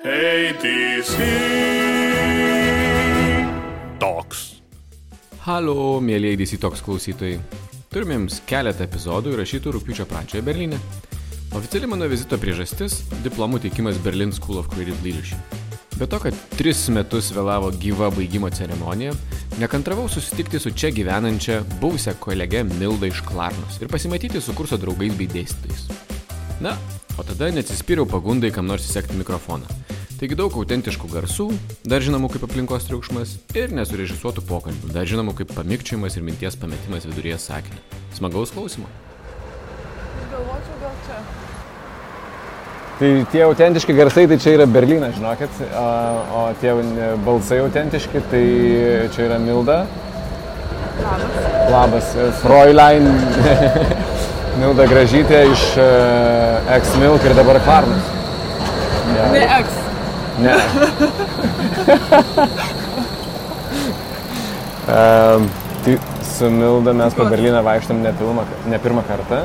ATC Talks. Halo, mėlyje ATC Talks klausytojai. Turime jums keletą epizodų įrašytų rugpjūčio pradžioje Berlyne. Oficiali mano vizito priežastis – diplomų teikimas Berlin School of Creative Leadership. Be to, kad 3 metus vėlavo gyva baigimo ceremonija, nekantravau susitikti su čia gyvenančia buvusią kolegę Mildą iš Klarnos ir pasimatyti su kurso draugais bei dėstytojais. Na, o tada neatsispyriau pagundai kam nors įsekti mikrofoną. Taigi daug autentiškų garsų, dar žinomų kaip aplinkos triukšmas ir nesurežisuotų pokalbių, dar žinomų kaip pamikčiojimas ir minties pametimas viduryje sakinio. Smagaus klausimo. Aš galvočiau gal čia. Tai tie autentiški garsai, tai čia yra Berlynas, žinokit, o tie balsai autentiški, tai čia yra Milda. Labas. Fräulein Milda Gražytė iš Ex-Milk ir dabar Klarnos. Ja. Ne Ex. Ne. Tai su Milda mes po Berlyną vaikštam ne pirmą kartą.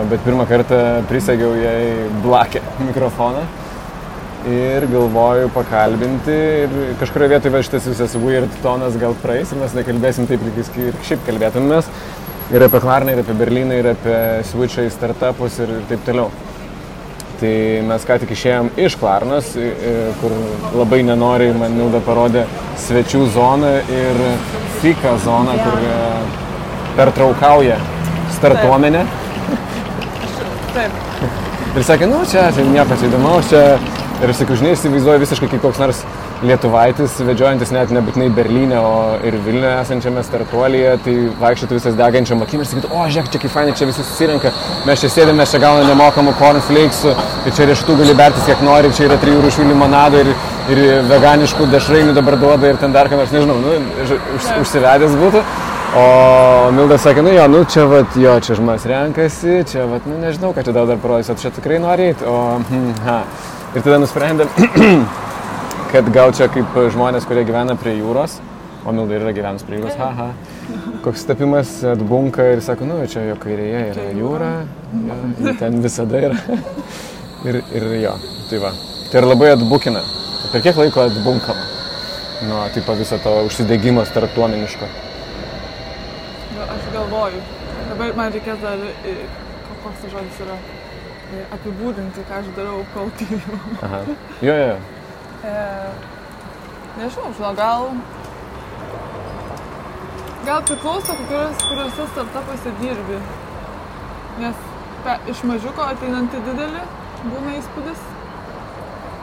Bet pirmą kartą prisegiau jai blakę mikrofoną ir galvoju pakalbinti ir kažkurioje vietoje šitas visas weird tonas gal praeis ir mes nekalbėsim taip, ir šiaip kalbėtumės ir apie Klarną, ir apie Berlyną, ir apie switchą į startupus ir taip toliau. Tai mes ką tik išėjom iš Klarnos, kur labai nenoriai man Milda parodė svečių zoną ir fika zoną, kur pertraukauja startuomenė. Taip. Ir sakė, čia nieko čia įdomaus, čia... Ir aš sakiau, žinai, įsivaizduoju visiškai kaip koks nors lietuvaitis, vedžiojantis net nebūtinai Berlyne, o ir Vilniuje esančiame startuolyje, tai vaikščiotų visas degančiam akim ir sakytų, žiūrėk, čia kaip fainai, čia visi susirenka, mes čia sėdėme, mes čia gauname nemokamų cornflakesų, ir čia riešutų gali bertis kiek nori, čia yra 3 rūšių limonado ir veganiškų dešrainių dabar duoda ir ten dar ką nors, nežinau, užsivedęs būtų. O Milda sakė, čia čia žmonės renkasi, čia nežinau, ką čia dar parodys, o čia tikrai nori eiti, Ir tada nusprendėm, kad gal čia kaip žmonės, kurie gyvena prie jūros, o Milda yra gyvenus prie jūros, koks tapimas atbunka ir sako, čia jo kairėje yra jūra, ten visada yra. ir jo, tai va. Tai ir labai atbukina. Per kiek laiko atbunkama? Tipo viso to užsidegimo startuomeniško. Aš galvoju. Dabar man reikės dar, koks tas žodis yra, apibūdinti, ką aš darau, kol tyriu. Jo. Nežinau, gal priklauso, kuriuose startupuose dirbi. Nes iš mažiuko ateinant į didelį būna įspūdis,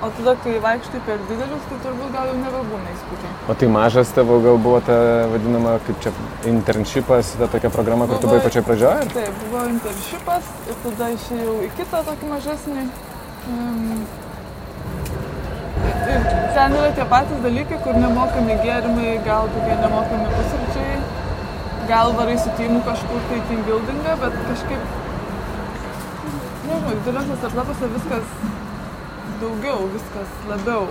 o tada, kai vaikštai per didelius, tai turbūt gal jau nebebūna įspūdžiai. O tai mažas tavo gal buvo ta vadinama, kaip čia, internshipas, ta tokia programa, kur tu buvai pačioj pradžioje? Taip, buvo internshipas ir tada išėjau į kitą tokį mažesnį. Ir ten yra tie patys dalykai, kur nemokami gėrimai, gal tokie nemokami pusryčiai, gal varai su teamu kažkur tai team buildingą, bet kažkaip, nežinau, dideliuose startupuose viskas daugiau, viskas labiau.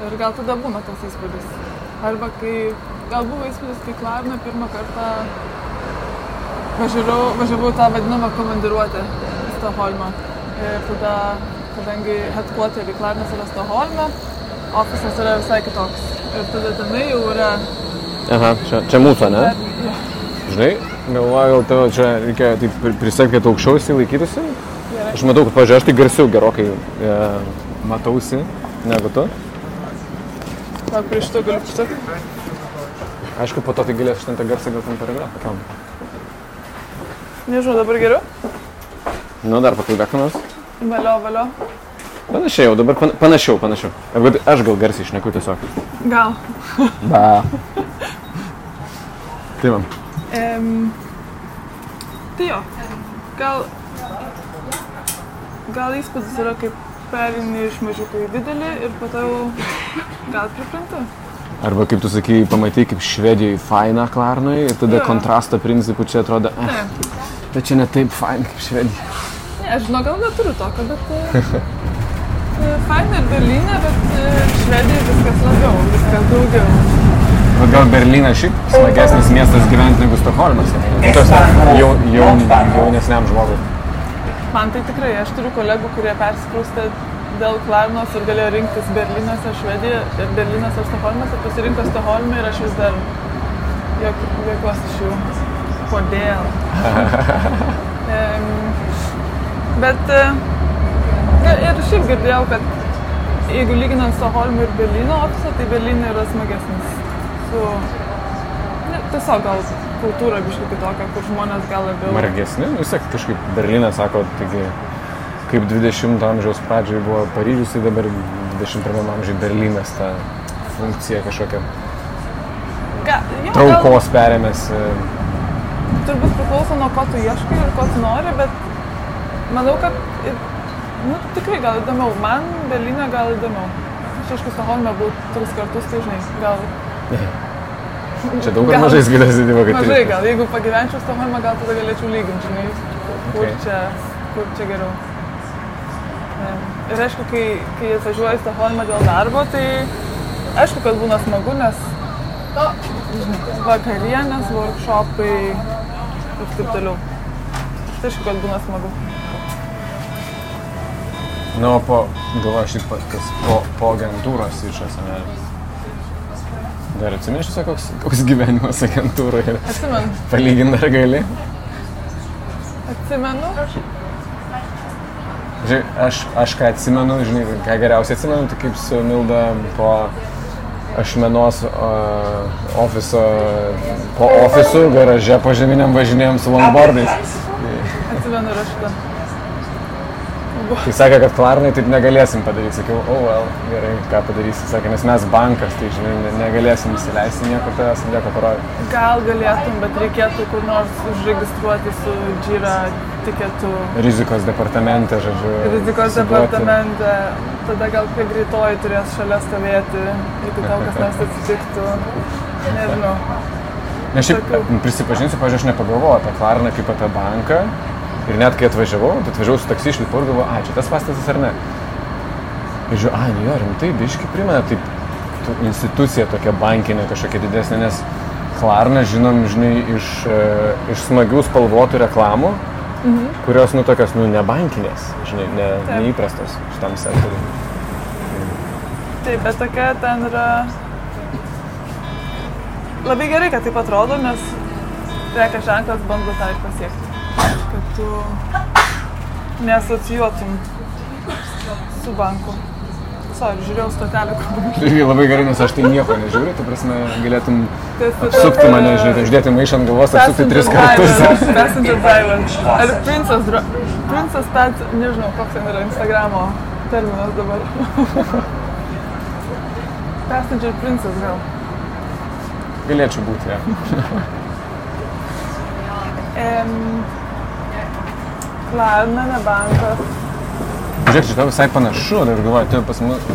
Ir gal tada būna tas įspūdis. Arba gal buvo įspūdis, kai Klarną pirmą kartą važiavau tą vadinamą komandiruotę į Stokholmą. Ir tada, kadangi headquarterį Klarnas yra Stokholme, ofisas yra visai kitoks. Ir tada tenai jau yra... Čia mūsų, ne? Ja. Žinai, galvoju, gal tavo čia reikia prisekti, kad aukščiau laikytųsi? Aš matau, kad, pažiūrėjau, aš tai garsiau gerokai matausi negu tu. Gal prieš to galiu pristatyti? Aišku, po to tai galėsiu šitą garsą gal ten paragrafą. Nežinau, dabar geriau? Dar pakalbėk nors. Valio. Panašiai jau, dabar panašiau. Aš gal garsiai šneku tiesiog. Gal. Tai man. Tai jo, gal įspūdis yra, kaip perini iš mažiuko į didelį ir po to gal pripranti. Arba kaip tu sakai, pamatai kaip Švedijai faina Klarnoj ir tada kontrasto principų čia atrodo, bet čia ne taip faina kaip Švedija. Ne, aš žinau, gal neturiu tokio, bet faina ir Berlyne, bet Švedijai viskas labiau, viskas daugiau. Bet gal Berlynas šiaip smagesnis miestas gyventi negu Stokholmas? Jaunesniam žmogui. Man tai tikrai, aš turiu kolegų, kurie persikraustė dėl Klarnos ir galėjo rinktis Berlynas ar Švedija, ir Berlynas ar Stokholmas, ir pasirinko Stokholmą ir aš vis dar juokiuosi iš jų. Kodėl? Bet ir šiaip girdėjau, kad jeigu lyginant Stokholmą ir Berlyno ofisą, tai Berlyne yra smagesnis. Tiesiog gal kultūra biškai kitokia, kur žmonės gal labiau... Margesni? Vis tiek kažkaip Berlynas sako, taigi, kaip 20 amžiaus pradžioje buvo Paryžius, tai dabar 21 amžiai Berlynas tą funkciją kažkokią traukos perėmės. Turbūt priklauso nuo ko tu ieškai ir ko tu nori, bet manau, kad tikrai gal įdomiau. Man Berlyne gal įdomiau. Aš aišku, Stokholme buvau 3 kartus, tai žinai, gal... Čia daug ar mažai galėsi divo, kad... Mažai gal, jeigu pagyvenčiau Stokholme, gal tada galėčiau lyginti, žinai, kur čia geriau. Ir aišku, kai atvažiuoju į Stokholmą dėl darbo, tai aišku, kad būna smagu, nes vakarienės, workshopai ir taip toliau. Tai aišku, kad būna smagu. Na, o galvoju, šiaip po agentūros išas, ne? Dar atsimeni šitą, koks gyvenimas agentūroje? Atsimenu. Palyginti dar gali? Atsimenu. Žinai, aš ką atsimenu, žinai, ką geriausiai atsimenu, tai kaip su Milda po Ašmenos po ofisų garaže požeminiam važinėjom su longboardais. Atsimenu ir aš šitą. Tai sakė, kad Klarnai taip negalėsim padaryti. Sakiau, gerai, ką padarysi. Sakė, nes mes bankas, tai žinai, negalėsim įsileisti niekur tavęs, nieko parodyti. Gal galėtum, bet reikėtų kur nors užregistruoti su Jira tiketu. Rizikos departamente, žodžiu. Rizikos departamente. Tada gal prie greitoji turės šalia stovėti, jeigu tau kas nors atsitiktų. Nežinau. Nes šiaip prisipažinsiu, pavyzdžiui, aš nepagalvojau apie Klarną kaip apie banką. Ir net kai atvažiavau su taksi išlipu ir galvoju, čia tas pastatas ar ne. Ir žiūrėjau, jo, rimtai, biškai primena, taip, institucija tokia bankinė kažkokia didesnė, nes Klarną žinom, žinai, iš smagių spalvotų reklamų, kurios, tokios, ne bankinės, žinai, neįprastos šitam sektoriui. Taip, bet tokia ten yra... Labai gerai, kad taip atrodo, nes prekės ženklas bando tą ir pasiekti. Kad tu neasocijuotum su banku. Žiūrėjau stotelę, kur... Irgi labai gerai, nes aš tai nieko nežiūriu, tai prasme galėtum apsukti mane, žinai, uždėti maišą ant galvos, apsukti 3 kartus. Passenger driver. Ar princess pet, nežinau, koks ten yra Instagramo terminas dabar. Passenger princess gal. Galėčiau būti, ja. Klarna, ne bankas. Žiūrėk, šitą visai panašu, ir galvoju, tu pas mus,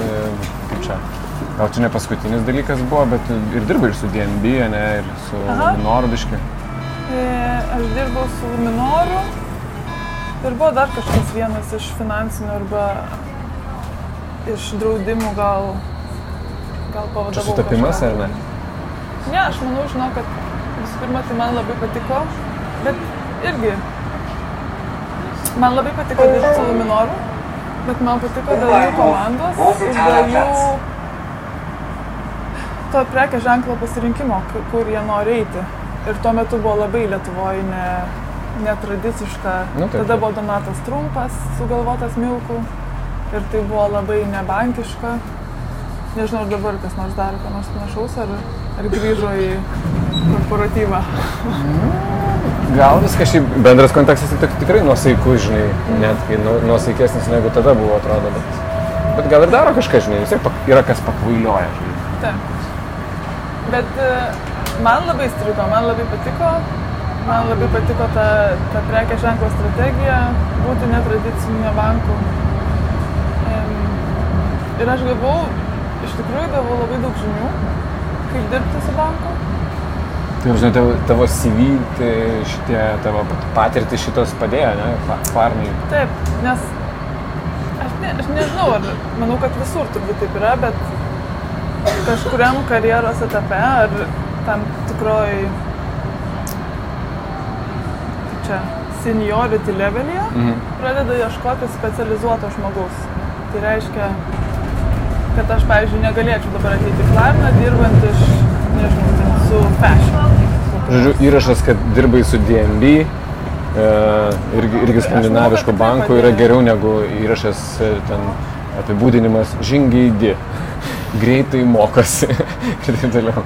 kaip čia, gal čia ne paskutinis dalykas buvo, bet ir dirbai ir su DNB, ne, ir su Luminoru biškai. Aš dirbau su Luminoru ir buvo dar kažkas vienas iš finansinių arba iš draudimų gal pavadavau kažką. Čia sutapimas ar ne? Ne, aš manau, žinau, kad visų pirma, tai man labai patiko, bet irgi man labai patiko dirbti su Luminoru, bet man patiko dėl jų komandos ir dėl jų to prekės ženklo pasirinkimo, kur jie nori eiti. Ir tuo metu buvo labai Lietuvoje netradiciška. Tada buvo Donatas Trumpas sugalvotas Milku ir tai buvo labai nebankiška. Nežinau, ar dabar kas nors daro, ką nors panašaus, ar grįžo į korporatyvą. Gal viskas šiaip bendras kontekstas tikrai nuosaikus, žinai, net kai nuosaikesnis negu tada buvo, atrodo, bet gal ir daro kažką, žinai, vis tiek yra kas pakvailioja, žinai. Taip. Bet man labai strigo, man labai patiko ta prekės ženklo strategija, būti netradiciniu banku. Ir aš iš tikrųjų gavau labai daug žinių, kaip dirbti su banku. Tai, žinai, tavo CV, tai šitie tavo patirtys šitos padėjo, ne, Klarnai? Taip, nes aš nežinau, manau, kad visur turbūt taip yra, bet kažkuriam karjeros etape ar tam tikroj seniority level'yje pradeda ieškoti specializuoto žmogaus. Tai reiškia, kad aš, pavyzdžiui, negalėčiau dabar ateiti į Klarną, dirbant iš, nežinau, ten su fashion. Žodžiu, įrašas, kad dirbai su DNB, irgi skandinaviško banko, yra geriau negu įrašas ten apibūdinimas žingeidi, greitai mokosi ir taip toliau.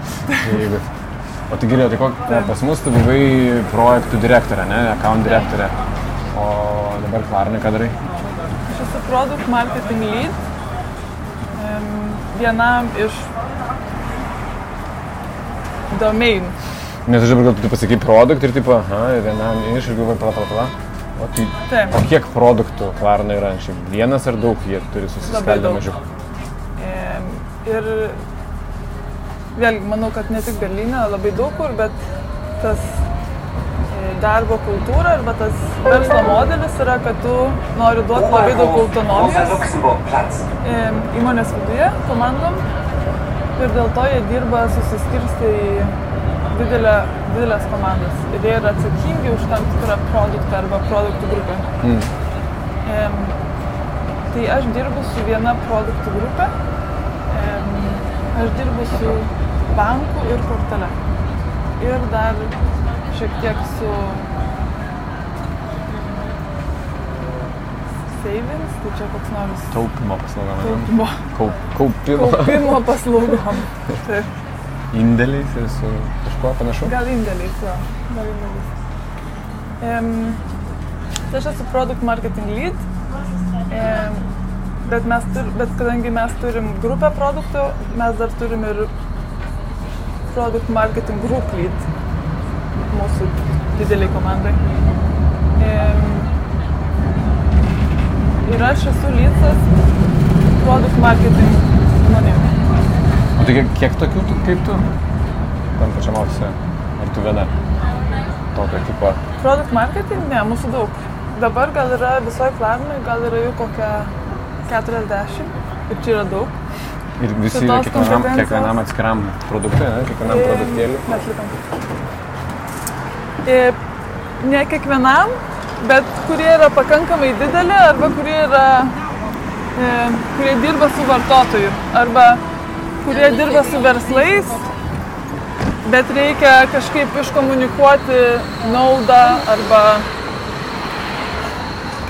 O tai gerai, tai pas mus tu buvai projektų direktorė, ne, account direktorė, o dabar Klarnai ką darai? Aš esu product marketing lead, vienam iš domain. Nes aš dabar gal tu pasakai produkt ir tipo, vienam iš ir galvoju, pala. O kiek produktų Klarna yra? Šiaip vienas ar daug jie turi susiskaldę mažiau? Ir vėlgi, manau, kad ne tik Berlyne, labai daug kur, bet tas darbo kultūra arba tas verslo modelis yra, kad tu nori duoti labai daug autonomijos įmonės viduje, komandom, ir dėl to jie dirba susiskirstę į didelės komandas ir jie yra atsakingi už tam tikrą produktą arba produktų grupę. Tai aš dirbu su viena produktų grupė, aš dirbu su banku ir kortele ir dar šiek tiek su savings, tai čia koks nors taupimo paslaugom. Kaupimo paslaugom. Taip. Indėliais ir su kažkuo panašu? Gal indėliais, jo. Tai aš esu product marketing lead, bet kadangi mes turim grupę produktų, mes dar turim ir product marketing group lead mūsų dideliai komandai. Ir aš esu leadsas product marketing žmonėm. O tai kiek tokių kaip tu? Tam pačiam ofise? Ar tu viena? Tokio tipo? Product marketing? Ne, mūsų daug. Dabar gal yra visoje Klarnai, gal yra jų kokia 40 ir čia yra daug. Ir visi yra kiekvienam atskiram produktui, ne? Kiekvienam produktėliui? Ne kiekvienam, bet kurie yra pakankamai dideli arba kurie dirba su vartotoju arba kurie dirba su verslais, bet reikia kažkaip iškomunikuoti naudą arba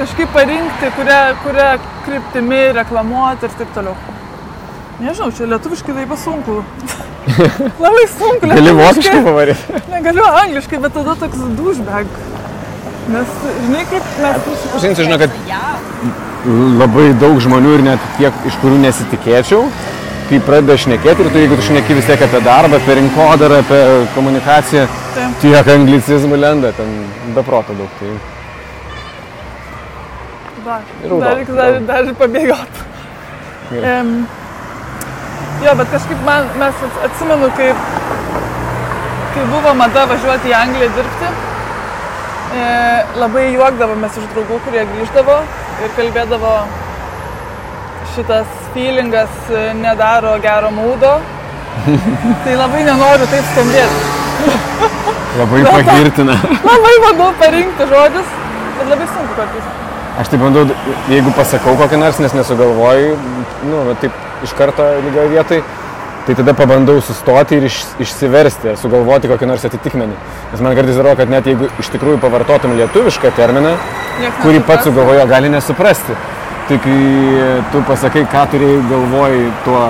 kažkaip parinkti, kurią kryptimi reklamuoti ir taip toliau. Nežinau, čia lietuviškai labai sunku. Labai sunku lietuviškai. Gali vokiškai pavaryti? Negaliu angliškai, bet tada toks douchebag. Nes, žinai, kaip mes... Žinai, žinau, kad labai daug žmonių ir net tiek, iš kurių nesitikėčiau, kai pradeda šnekėti ir tu, jeigu tu šneki vis tiek apie darbą, apie rinkodarą, apie komunikaciją, tiek anglicizmų lenda, ten be proto daug. Tai... Dar pabėgot. Jo, bet kažkaip mes atsimenu, kai buvo mada važiuoti į Angliją dirbti, labai juokdavomės iš draugų, kurie grįždavo ir kalbėdavo, šitas feelingas nedaro gero mūdo, tai labai nenoriu taip skambėti. Labai pagirtina. Labai bandau parinkti žodžius, bet labai sunku kartais. Aš tai bandau, jeigu pasakau kokį nors, nes nesugalvoju, taip iš karto lygioje vietoj, tai tada pabandau sustoti ir išsiversti, sugalvoti kokį nors atitikmenį. Nes man kartais atrodo, kad net jeigu iš tikrųjų pavartotum lietuvišką terminą, kurį pats sugalvojo, gali nesuprasti. Tai kai tu pasakai, ką turėjai galvoj tuo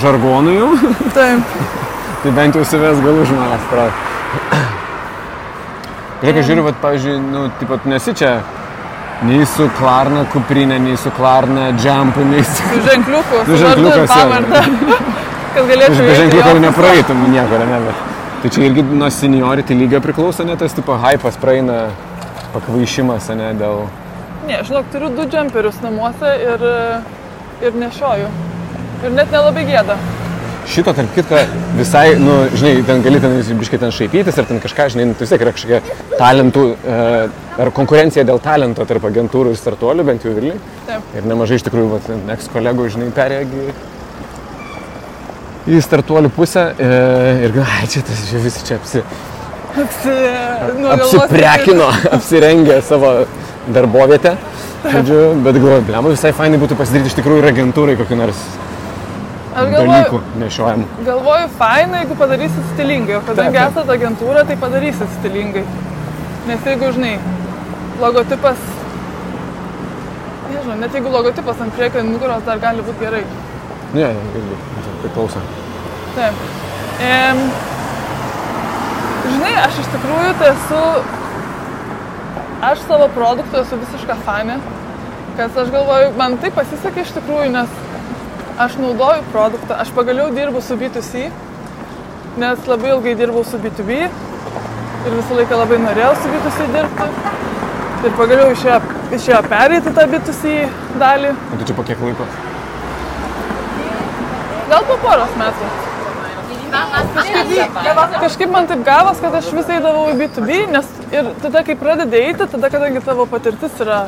žargonu jau, tai bent jau savęs galų žmonės prato. Reikia žiūriu, pavyzdžiui, nesi čia nei su Klarna kuprinė, nei su Klarna džempu, nei su... Su ženkliuku, su ženkliukas, pavardą. Kad galėčiau be ženkliuko nepraeitum nieko, ne, bet... Tai čia irgi nuo seniority lygio priklauso, ne, tas tipo hypas praeina pakvaišimas, ne, dėl... Ne, žinok, turiu 2 džemperius namuose ir nešioju. Ir net nelabai gėda. Šito, tarp kitko, visai, žinai, ten gali biškai ten šaipytis ir ten kažką, žinai, tai vis tiek yra kažkokia talentų ar konkurencija dėl talento tarp agentūrų ir startuolių, bent jau Vilniuj. Taip. Ir nemažai iš tikrųjų, eks-kolegų, žinai, perėjo į startuolių pusę ir čia tas visi čia apsiprekino, apsirengė savo darbovietę. žodžiu, bet galvoju, blema, visai fainai būtų pasidaryti iš tikrųjų ir agentūrai kokį nors dalykų nešiojamų. Galvoju, fainai, jeigu padarysit stilingai, o kadangi esat agentūra, tai padarysit stilingai. Nes jeigu, žinai, logotipas, nežinau, net jeigu logotipas ant priekio nugaros dar gali būti gerai. Ne, irgi, priklauso. Taip. Žinai, aš iš tikrųjų tai aš savo produktų esu visiška fanė, kad aš galvoju, man tai pasisekė iš tikrųjų, nes aš naudoju produktą, aš pagaliau dirbu su B2C, nes labai ilgai dirbau su B2B ir visą laiką labai norėjau su B2C dirbti ir pagaliau išėjo pereiti tą B2C dalį. O tu čia po kiek laiko? Gal po poros metų. Kažkaip man taip gavos, kad aš vis eidavau į B2B, nes ir tada, kai pradedi eiti, tada, kadangi tavo patirtis yra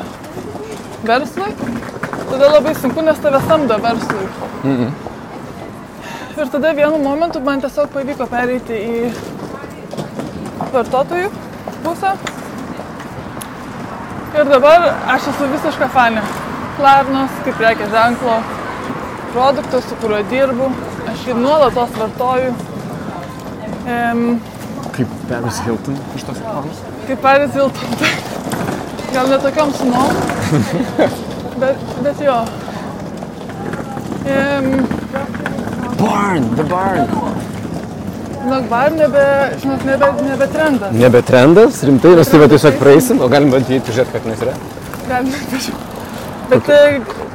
verslui, tada labai sunku, nes tave samdo verslui. Ir tada vienu momentu man tiesiog pavyko pereiti į vartotojų pusę. Ir dabar aš esu visiška fanė. Klarnos, kaip prekės ženklo, produktas, su kuriuo dirbu. Aš jį nuolatos vartoju. Kaip Paris Hilton iš tos reklamos? Kaip Paris Hilton. Gal ne tokiom sumom, bet jo. Barn, the barn. Žinok, nebe trendas. Nebe trendas, rimtai, mes tai tiesiog praeisim, o galim bandyti pažiūrėti, kad nes yra. Galim pažiūrėti. Bet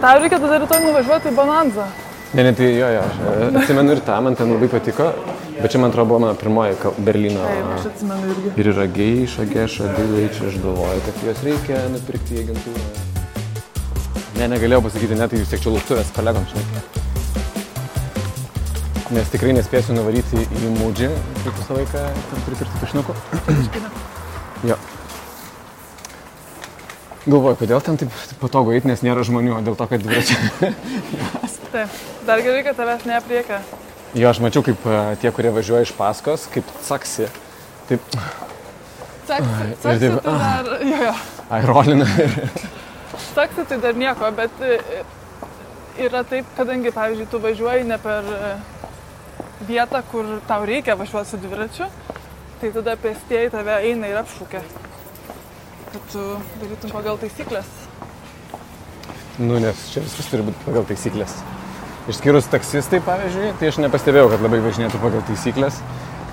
tau reikia tada rytoj nuvažiuoti į Bonanzą. Ne, tai jo, aš atsimenu ir tą, man ten labai patiko, bet čia man atrodo buvo mano pirmoji Berlyno. Taip, aš atsimenu irgi. Ir yra geiša, dilai, čia aš galvoju, kad juos reikia nupirkti į agentūrą. Ne, negalėjau pasakyti, net tai vis tiek čia lauktuves kolegom, žinai. Nes tikrai nespėsiu nuvaryti į Mūdžį, kaip visą laiką pripirkti tušniukų. Jo. Galvoju, kodėl ten taip patogu eiti, nes nėra žmonių, dėl to, kad dviračiai. Taip, dar gerai, kad tavęs neapriekia. Jo, aš mačiau, kaip tie, kurie važiuoja iš paskos, kaip caksi. Taip. Caksi tai dar, jo. Ai, rolina. Caksi tai dar nieko, bet yra taip, kadangi, pavyzdžiui, tu važiuoji ne per vietą, kur tau reikia važiuoti su dviračiu, tai tada pėstieji tave eina ir apšūkia. Kad tu darytum pagal taisyklės. Nu, nes čia viskas turi būti pagal taisyklės. Išskyrus taksistai, pavyzdžiui, tai aš nepastebėjau, kad labai važinėtų pagal taisyklės.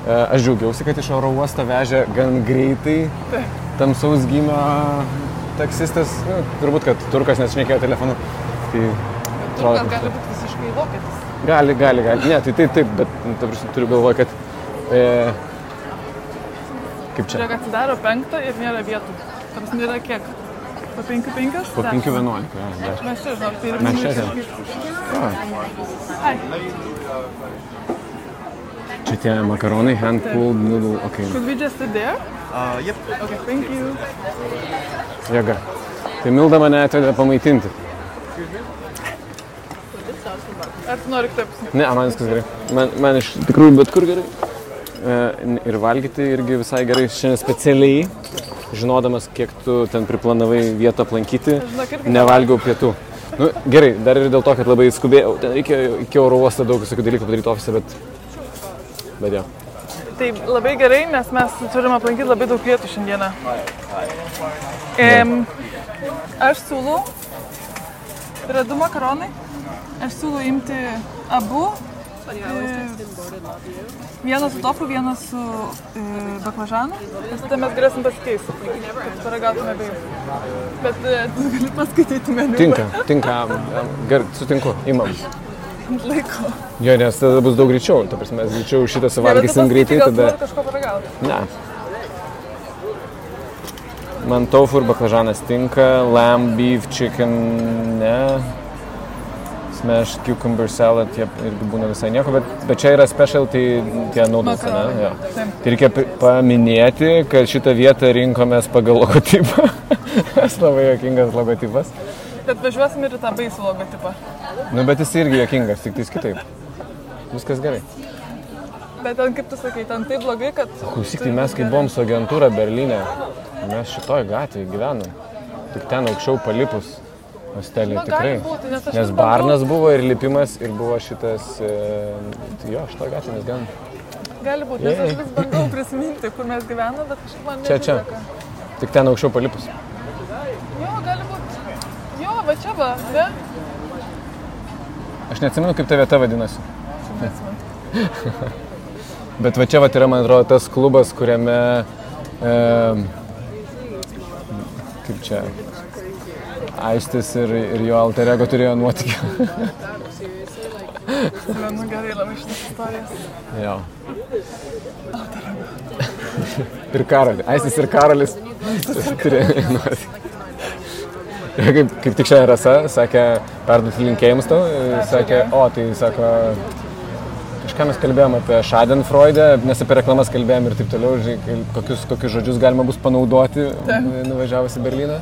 Aš džiaugiausi, kad iš oro uostą vežė gan greitai tamsaus gymio taksistas. Nu, turbūt, kad turkas nešnekėjo telefonu. Tai turkas gali būti visiškai vokietis. Gali. Ne, tai taip, bet turiu galvoje, kad... Kaip čia? Žiūrėk, atsidaro 5 ir nėra vietų. Tarsi nėra kiek? Po 5-5? Po 5-11, jo. Mes čia, žinok, tai ir mes čia. Ai. Čia tie makaronai, hand-pulled noodle, ok. Could we just sit there? Yep. Okay, thank you. Jėga. Tai Milda mane atvedė pamaitinti. Ar tu nori taip? Ne, man viskas gerai. Man iš tikrųjų bet kur gerai. Ir valgyti irgi visai gerai. Šiandien specialiai, žinodamas, kiek tu ten priplanavai vietą aplankyti, nevalgiau pietų. Nu, gerai, dar ir dėl to, kad labai skubėjau. Ten reikėjo iki oro uosto daug visokių dalykų padaryti ofise, bet jo. Tai labai gerai, nes mes turim aplankyti labai daug vietų šiandieną. Aš siūlau, yra 2 makaronai, aš siūlau imti abu. Vienas su tofu, vienas su baklažanu. Nes tada mes galėsim pasikeisti, kad paragautume abiejų. Bet tu gali paskaityti meniu. Tinka. Gerai, sutinku, imam. Laiko. Jo, nes tada bus daug greičiau. Ta prasme, mes greičiau šitą suvalgysim greitai, tada... Gal tu nori kažko paragauti? Ne. Man tofu ir baklažanas tinka, lamb, beef, chicken, ne. Smashed cucumber salad, jie irgi būna visai nieko, bet čia yra specialty tie noodles, ne? Jo. Tai reikia paminėti, kad šitą vietą rinkomės pagal logotipą. Esu labai juokingas logotipas. Bet važiuosim ir į tą baisų logotipą. Nu, bet jis irgi juokingas, tik tais kitaip. Viskas gerai. Bet ten, kaip tu sakai, ten taip blogai, kad... Klausyk, tai mes kai buvom su agentūra Berlyne, mes šitoj gatvėje gyvenom. Tik ten aukščiau palipus hostelį Na, tikrai. gali būti, nes aš Nes vis barnas buvo ir lipimas ir buvo šitas, tai jo, šitą gatvę mes gyvenam. Gali būti, nes aš vis bandau prisiminti, kur mes gyvename, bet kažkaip man Čia. nesiseka. Tik ten aukščiau palipus. Jo, gali būti. Jo, va čia va, ne? Aš neatsimenu, kaip ta vieta vadinasi. Neatsimenu. Bet va čia va yra, man atrodo, tas klubas, kuriame, kaip čia, Aistis ir jo alter ego turėjo nuotykį. Menu gerai labai šitas istorijas. Jo. Ir Karolį. Aistis ir Karolis turėjo nuotykį. Kaip tik šiandien Rasa sakė, perduoti linkėjimus tau, sakė, tai sako, kažką mes kalbėjom apie Schadenfreude, nes apie reklamas kalbėjom ir taip toliau, kokius žodžius galima bus panaudoti nuvažiavus į Berlyną.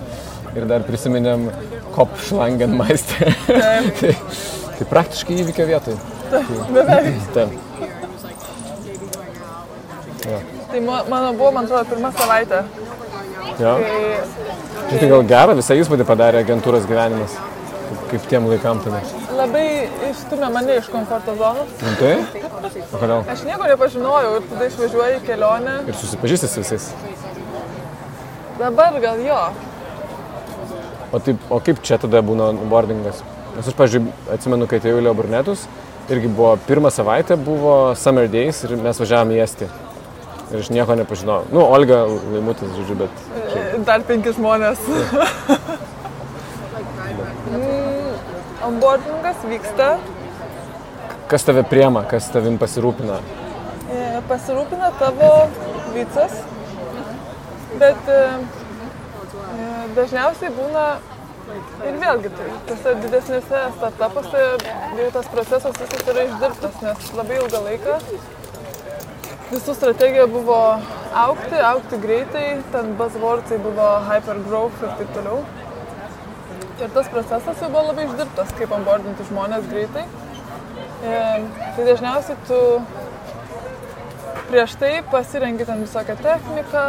Ir dar prisiminėm Kopfschlangenmeister. Tai praktiškai įvykio vietoj. Beveik. Taip. Tai mano buvo, man atrodo, pirma savaitė. Jo. Tai gal gerą visą įspūdį padarė agentūros gyvenimas, kaip tiem laikam tada. Labai išstumė mane iš komforto zonos. Tai? O kodėl? Aš nieko nepažinojau ir tada išvažiuoju į kelionę. Ir susipažįsti su visais. Dabar gal jo. O kaip čia tada būna boardingas? Nes aš, pavyzdžiui, atsimenu, kai atėjau į Leo Burnetus, irgi buvo pirmą savaitę, buvo Summer Days ir mes važiavom į Estiją. Ir aš nieko nepažinojau. Olga Laimutis, žodžiu, bet... Dar 5 žmonės. Onboardingas vyksta. Kas tave priema, kas tavim pasirūpina? Pasirūpina tavo vicas, bet dažniausiai būna ir vėlgi tose didesnėse startupuose jau tas procesas visas yra išdirbtas, nes labai ilgą laiką visų strategija buvo augti greitai, ten buzzwordsai buvo hypergrowth ir taip toliau. Ir tas procesas jau buvo labai išdirbtas, kaip onboardinti žmonės greitai. Tai dažniausiai tu prieš tai pasirengi ten visokią techniką,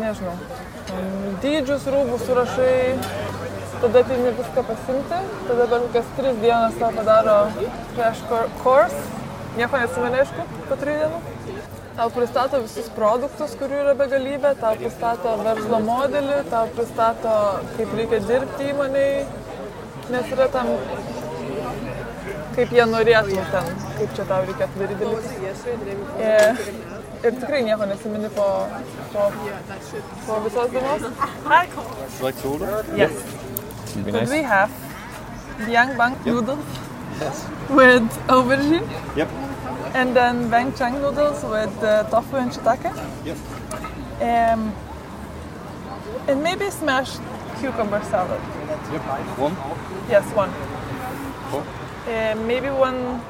nežinau, dydžius, rūbus surašai, tada ateini viską pasimti, tada per kokias 3 dienas tau padaro crash course, nieko neatsimeni, aišku, po 3 dienų. Tau pristato visus produktus, kurių yra begalybė, tau pristato verslo modelį, tau pristato, kaip reikia dirbti įmonei, nes yra tam, kaip jie norėtų ten, kaip čia tau reikėtų daryti dalykus. Ir tikrai nieko nesimeni po visos dienos. Like to order? Yes. Could we have Biang Bang noodles with aubergine? Yep. And then Bang Chang noodles with tofu and shiitake? Yep. And maybe smashed cucumber salad. Yep. One. Yes, one. Cool. Maybe one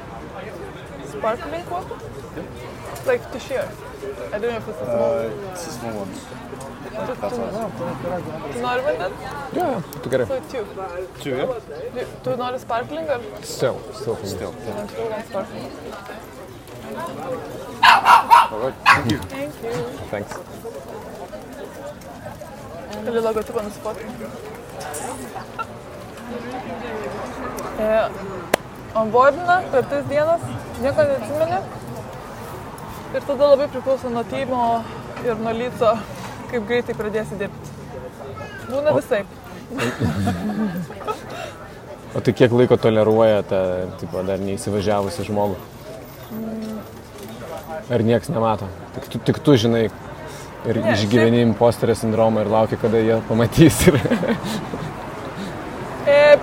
sparkling water? Yep. Like to share. I don't know if it's a small. It's a small one. Tu nori vandens? Jo, tu gerai. So 2. 2, yeah? Tu nori sparkling ar? Still. Still. One sparkling. All right. Thank you. Thank you. Thanks. Gali logotipą nusifotinti. Onboardina per 3 dienas, nieko neatsimeni. Ir tada labai priklauso nuo timo ir nuo lyco, kaip greitai pradėsi dirbti. Būna visaip. O tai kiek laiko toleruoja tą, dar neįsivažiavusi žmogų? Ar nieks nemato? Tik tu žinai ir išgyveni imposterio sindromą ir lauki, kada jie pamatys.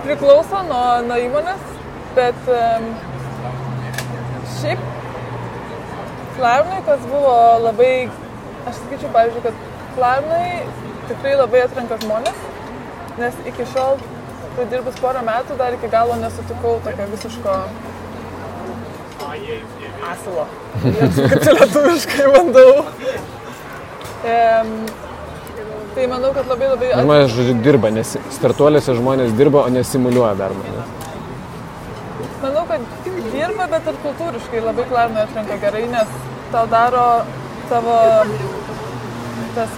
Priklauso nuo įmonės, bet šiaip Klarnai, kas buvo labai, aš sakyčiau, pavyzdžiui, kad Klarnai tikrai labai atrenka žmonės, nes iki šiol, kai dirbus porą metų, dar iki galo nesutikau tokio visiško asilo. Kaip čia lietuviškai bandau. Tai manau, kad labai... Žmonės, žodžiu, dirba, nes startuoliuose žmonės dirba, o nesimuliuoja darbą. Manau, kad dirba, bet ir kultūriškai labai Klarnai atrenka gerai, nes tau daro tavo tas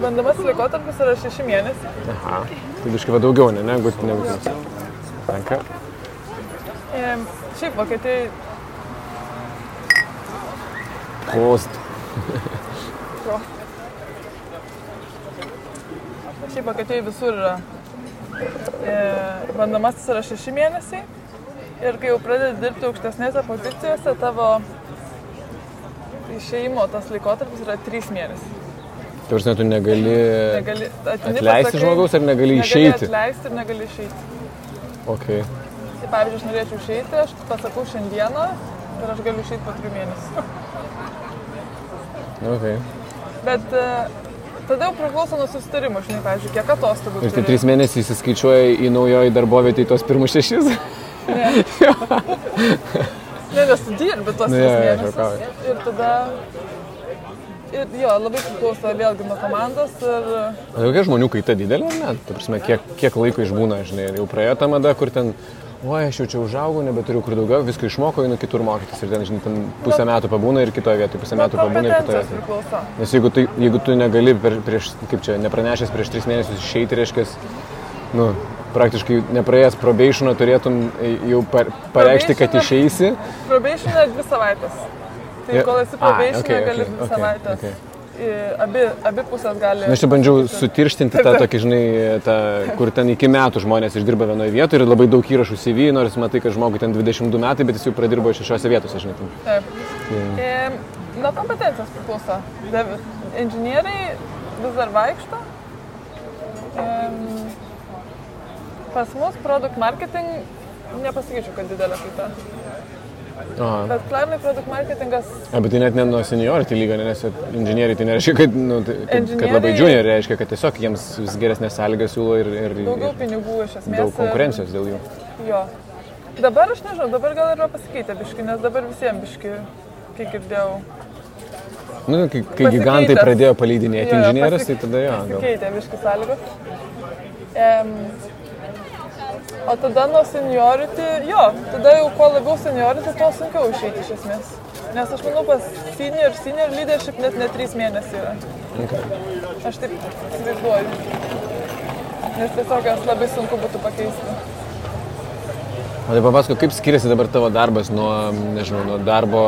bandomasis laikotarpis yra 6 mėnesiai. Aha, tai biškai va daugiau, negu tas. Tenka. Šiaip Vokietijai... Prost. Šiaip Vokietijai visur yra. Bandomasis yra 6 mėnesiai. Ir kai jau pradedi dirbti aukštesnėse pozicijose, tavo išėjimo tas laikotarpis yra 3 mėnesiai. Tai prasme, tu negali atleisti žmogaus ar negali išeiti? Negali atleisti ir negali išeiti. Okay. Tai pavyzdžiui, aš norėčiau išeiti, aš pasakau šiandieną ir aš galiu išeiti po 3 mėnesių. Okay. Bet tada jau priklauso nuo susitarimo, žinai, pavyzdžiui, kiek atostogų. Ir tai 3 mėnesiai įsiskaičiuoja į naujoji darbovietį į tos pirmus 6? Ne. Ne, nes tu dirbi tos 3 mėnesius. Ir tada... Ir jo, labai priklauso vėlgi nuo komandos ir... O kokia žmonių kaita didelė, ar ne? Ta prasme, kiek laiko išbūna, žinai, jau praėjo ta mada, kur ten, oi, aš jau čia užaugau, nebeturiu kur daugiau, viską išmokau, einu kitur mokytis ir ten, žinai, ten pusę metų pabūna ir kitoje vietoje, pusę metų pabūna ir kitoje vietoje. Priklauso. Nes jeigu tu negali nepranešęs prieš 3 mėnesius išeiti, reiškia, nu, praktiškai nepraėjęs probationą turėtum jau pareikšti, kad išeisi. Probationą 2 savaitės. Tai kol esi probationą, gali 2 savaitės. Abi pusės gali... Na, aš čia bandžiau sutirštinti tą tokį, žinai, kur ten iki metų žmonės išdirba vienoje vietoje ir labai daug įrašų CV, nors matai, kad žmogui ten 22 metai, bet jis jau pradirbo 6 vietose, žinai. Taip. Nuo kompetencijos priklauso. Inžinieriai vis dar vaikšto. Pas mus product marketing nepasakyčiau, kad didelė kaita. Bet Klarnai product marketingas... Bet tai net ne nuo seniority lygio, nes inžinieriai tai nereiškia, kad labai junior, reiškia, kad tiesiog jiems vis geresnės sąlygas siūlo ir daugiau pinigų iš esmės. Daug konkurencijos dėl jų. Jo. Dabar aš nežinau, dabar gal yra pasikeitę biški, nes dabar visiems biški, kiek girdėjau. Nu, kai gigantai pradėjo paleidinėti inžinierius, tai tada jo. Pasikeitė biški sąlygos. O tada nuo seniority, jo, tada jau kuo labiau seniority, tuo sunkiau išeiti iš esmės. Nes aš manau, pas senior leadership net ne 3 mėnesiai yra. Okay. Aš taip įsivaizduoju. Nes tiesiog jas labai sunku būtų pakeisti. O tai papasako, kaip skiriasi dabar tavo darbas nuo, nežinau, nuo darbo,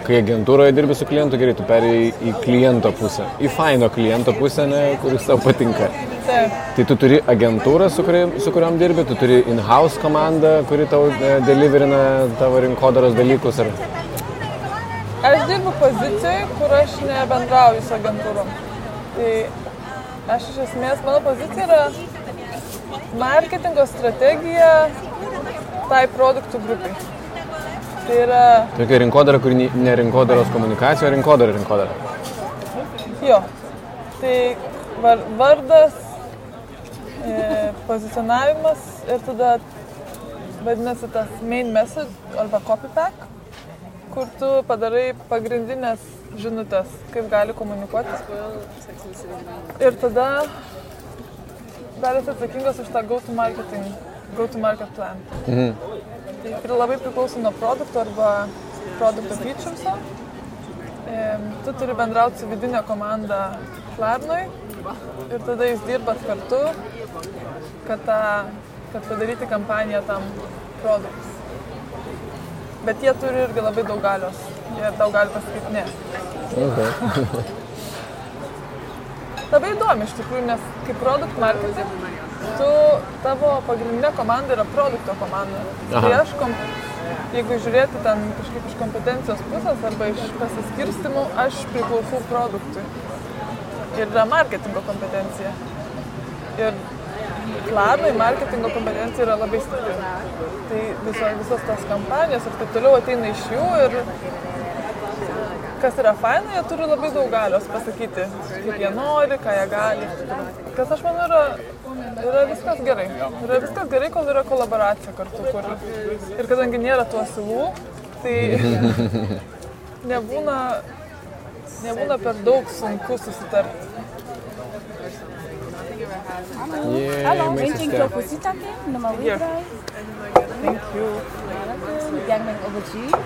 kai agentūroje dirbi su klientu, gerai, tu perėjai į kliento pusę, į faino kliento pusę, kuris tau patinka. Taip. Tai tu turi agentūrą, su kuriuom dirbi, tu turi in-house komandą, kuri tau deliverina tavo rinkodaros dalykus, ar... Aš dirbu pozicijoje, kur aš nebendrauju su agentūrom. Tai aš iš esmės, mano pozicija yra marketingo strategija tai produktų grupai. Tai yra... Tokia rinkodara, kuri ne rinkodaros komunikacija, o rinkodara. Jo. Tai vardas, pozicionavimas ir tada vadinasi tas main message arba copy pack, kur tu padarai pagrindinės žinutės, kaip gali komunikuoti. Ir tada dar esi atsakingas už tą go-to-market plan. Tai labai priklauso nuo produkto arba produkto features'o. Tu turi bendrauti su vidinė komanda Klarnoj ir tada jūs dirbat kartu, kad padaryti kampaniją tam produktui. Bet jie turi irgi labai daug galios. Jie tau gali pasakyti ne. Okay. Labai įdomi iš tikrųjų, nes kaip product marketing, tavo pagrindinė komanda yra produkto komanda. Tai aš, jeigu žiūrėti ten kažkaip iš kompetencijos pusės arba iš pasiskirstimų, aš priklausau produktui. Ir yra marketingo kompetencija. Ir Klarnai marketingo kompetencija yra labai stipri. Tai visos tos kampanijos ir taip toliau ateina iš jų ir kas yra faina, jie turi labai daug galios pasakyti, kaip jie nori, ką jie gali. Kas aš manau yra viskas gerai. Yra viskas gerai, kol yra kolaboracija kartu. Ir kadangi nėra tų asilų, tai nebūna per daug sunku susitarti. Hallo, eentje propositie nummer 3. Thank you. Young man aubergine.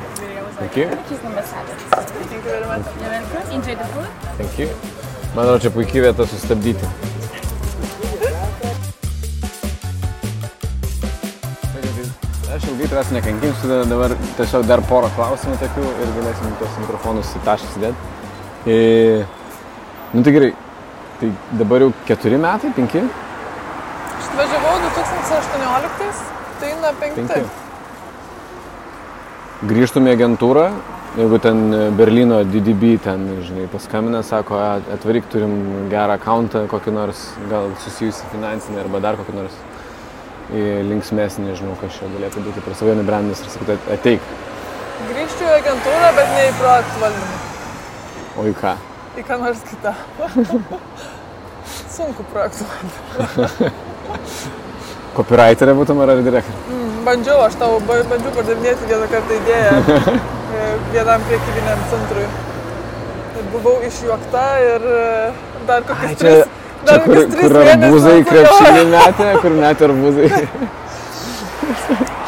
Thank you. Cheese number salad. Thank you very much. You're welcome. Enjoy the food. Thank you. Manau, čia puikiai vieta sustabdyti. Aš ilgai tavęs nekankinsiu, dabar tiesiog dar porą klausimų tokių ir galėsim tos mikrofonus į tašką sudėti. Nu tai gerai, tai dabar jau 4 metai, 5? Aš atvažiavau 2018, tai na 5. Grįžtum į agentūrą, jeigu ten Berlyno DDB ten, žinai, paskambina, sako, atvaryk, turim gerą accountą, kokį nors, gal susijusi finansinį arba dar kokį nors linksmesnį, nežinau, kas čia galėtų būti per savo brandas ir sakyti, ateik. Grįžčiau į agentūrą, bet ne į projektų valdymą. O į ką? Į ką nors kitą. Sunku projektų valdymą. Copywriterė būtum ar direktorė? Bandžiau, aš tau bandžiau pardavinėti vieną kartą idėją vienam priekybiniam centrui. Buvau išjuokta ir dar kokius 3 mėnesius. Čia kur arbūzai krepšinį metė, kur metė arbūzai.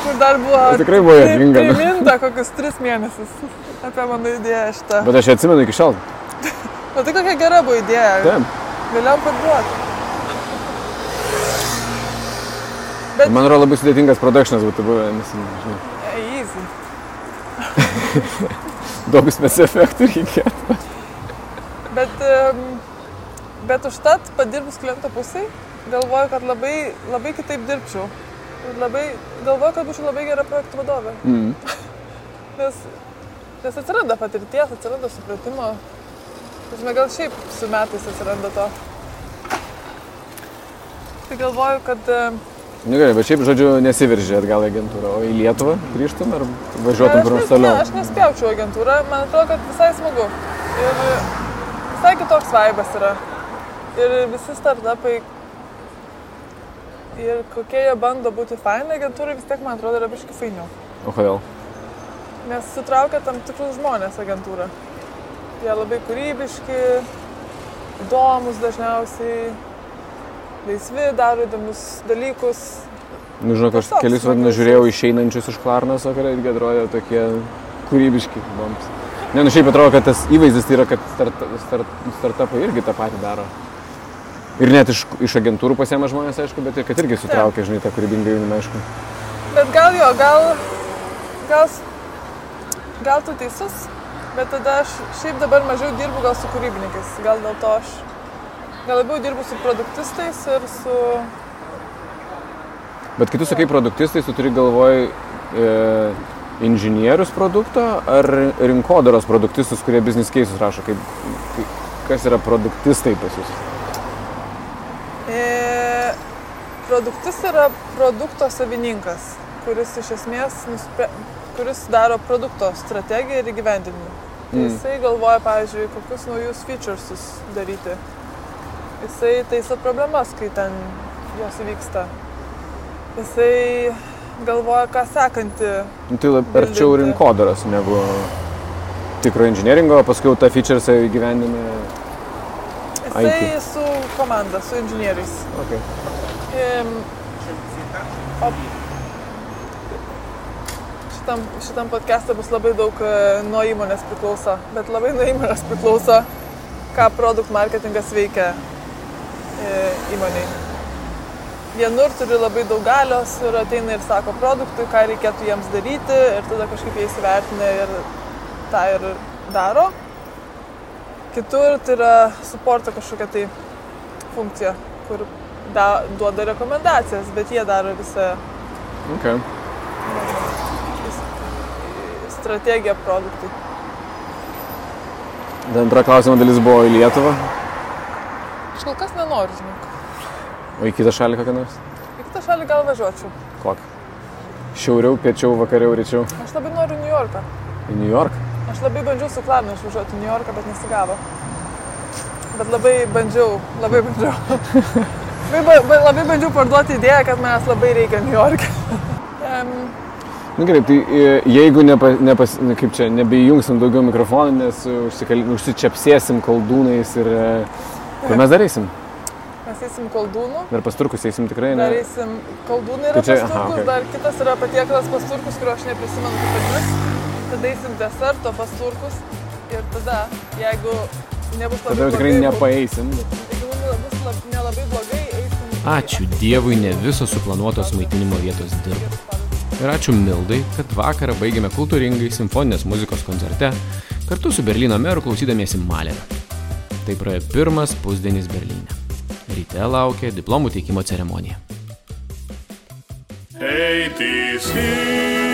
Kur dar buvo tikrai buvo juokinga. Priminta kokius 3 mėnesius apie mano idėją šitą. Bet aš atsimenu iki šiol. O tai kokia gera buvo idėja. Taip. Galėjom parduoti. Bet... Man yra labai sudėtingas productionas būtų buvę, nes, žinai. Easy. Daug spec-efektų reikėtų. Bet užtat padirbus kliento pusėj, galvoju, kad labai kitaip dirbčiau. Galvoju, kad būčiau labai gera projektų vadovė. Nes atsiranda patirties, atsiranda supratimo. Gal šiaip su metais atsiranda to. Tai galvoju, kad... Nu gerai, bet šiaip, žodžiu, nesiveržė atgal į agentūrą, o į Lietuvą grįžtum ar važiuotum kur nors toliau? Ne, aš nespjaučiau agentūrą, man atrodo, kad visai smagu. Ir visai kitoks vaibas yra. Ir visi startupai, ir kokie jie bando būti faini, agentūrai vis tiek, man atrodo, yra biškai fainiau. O kodėl? Nes sutraukia tam tikrus žmonės agentūrą. Jie labai kūrybiški, įdomus dažniausiai, laisvi, daro įdomius dalykus. Nu, žinok, aš kelis vadinus žiūrėjau išeinančius iš Klarnaso, kurie irgi atrodė tokie kūrybiški. Įdomus. Ne, nu šiaip atrodo, kad tas įvaizdis tai yra, kad startupai irgi tą patį daro. Ir net iš agentūrų pasiema žmonės, aišku, bet ir kad irgi sutraukia, žinai, tą kūrybingą jaunimą, aišku. Bet gal tu teisus, bet tada aš šiaip dabar mažiau dirbu gal su kūrybininkais. Gal dėl to aš gal labiau dirbu su produktistais ir su... Bet kai tu sakai produktistais, tu turi galvoj inžinierius produkto ar rinkodaros produktistus, kurie business cases rašo? Kas yra produktistai pas jūs? Produktis yra produkto savininkas, kuris iš esmės kuris daro produkto strategiją ir įgyvendinimą. Jisai galvoja, pavyzdžiui, kokius naujus featuresus daryti. Jisai taiso problemas, kai ten jos įvyksta. Jisai galvoja, ką sekantį. Tai arčiau rinkodaros negu tikro inžinieringo, paskui tą featuresą įgyvendina Jisai su komanda, su inžinieriais. Okay. Šitam podcast'e bus labai daug nuo įmonės priklauso, bet labai nuo įmonės priklauso, ką produkt marketingas veikia įmonėj. Vienur turi labai daug galios ir ateina ir sako produktui, ką reikėtų jiems daryti ir tada kažkaip jie įsivertina ir tą ir daro. Kitur tai yra supporto kažkokia tai funkcija, kur duoda rekomendacijas, bet jie daro visą strategiją produktui. Antra klausimo dalis buvo į Lietuvą. Aš kol kas nenoriu, žinok. O į kitą šalį kokią nors? Į kitą šalį gal važiuočiau. Kokią? Šiauriau, piečiau, vakariau, ryčiau? Aš labai noriu New Yorką. Į New York? Aš labai bandžiau su Klarna išvažiuoti į New Yorką, bet nesigavo. Bet labai bandžiau. Labai bandžiau parduoti idėją, kad manęs labai reikia New York'e. Na gerai, tai jeigu nebeįjungsim daugiau mikrofonų, nes užsičiapsėsim koldūnais ir kur mes dar eisim? Mes eisim koldūnų. Dar pas turkus eisim tikrai, ne? Dar eisim koldūnai yra pas turkus, dar kitas yra patiekalas pas turkus, kurio aš neprisimenu kaip vadinasi. Tada eisim deserto pas turkus ir tada, jeigu nebus Tada jau tikrai nepaeisim. Jeigu bus nelabai blogai, eisim. Ačiū Dievui, ne visos suplanuotos maitinimo vietos dirba. Ir ačiū Mildai, kad vakarą baigėme kultūringai simfoninės muzikos koncerte kartu su Berlyno meru klausydamiesi Malerio. Tai praėjo pirmas pusdienis Berlyne. Ryte laukia diplomų teikimo ceremonija. ATC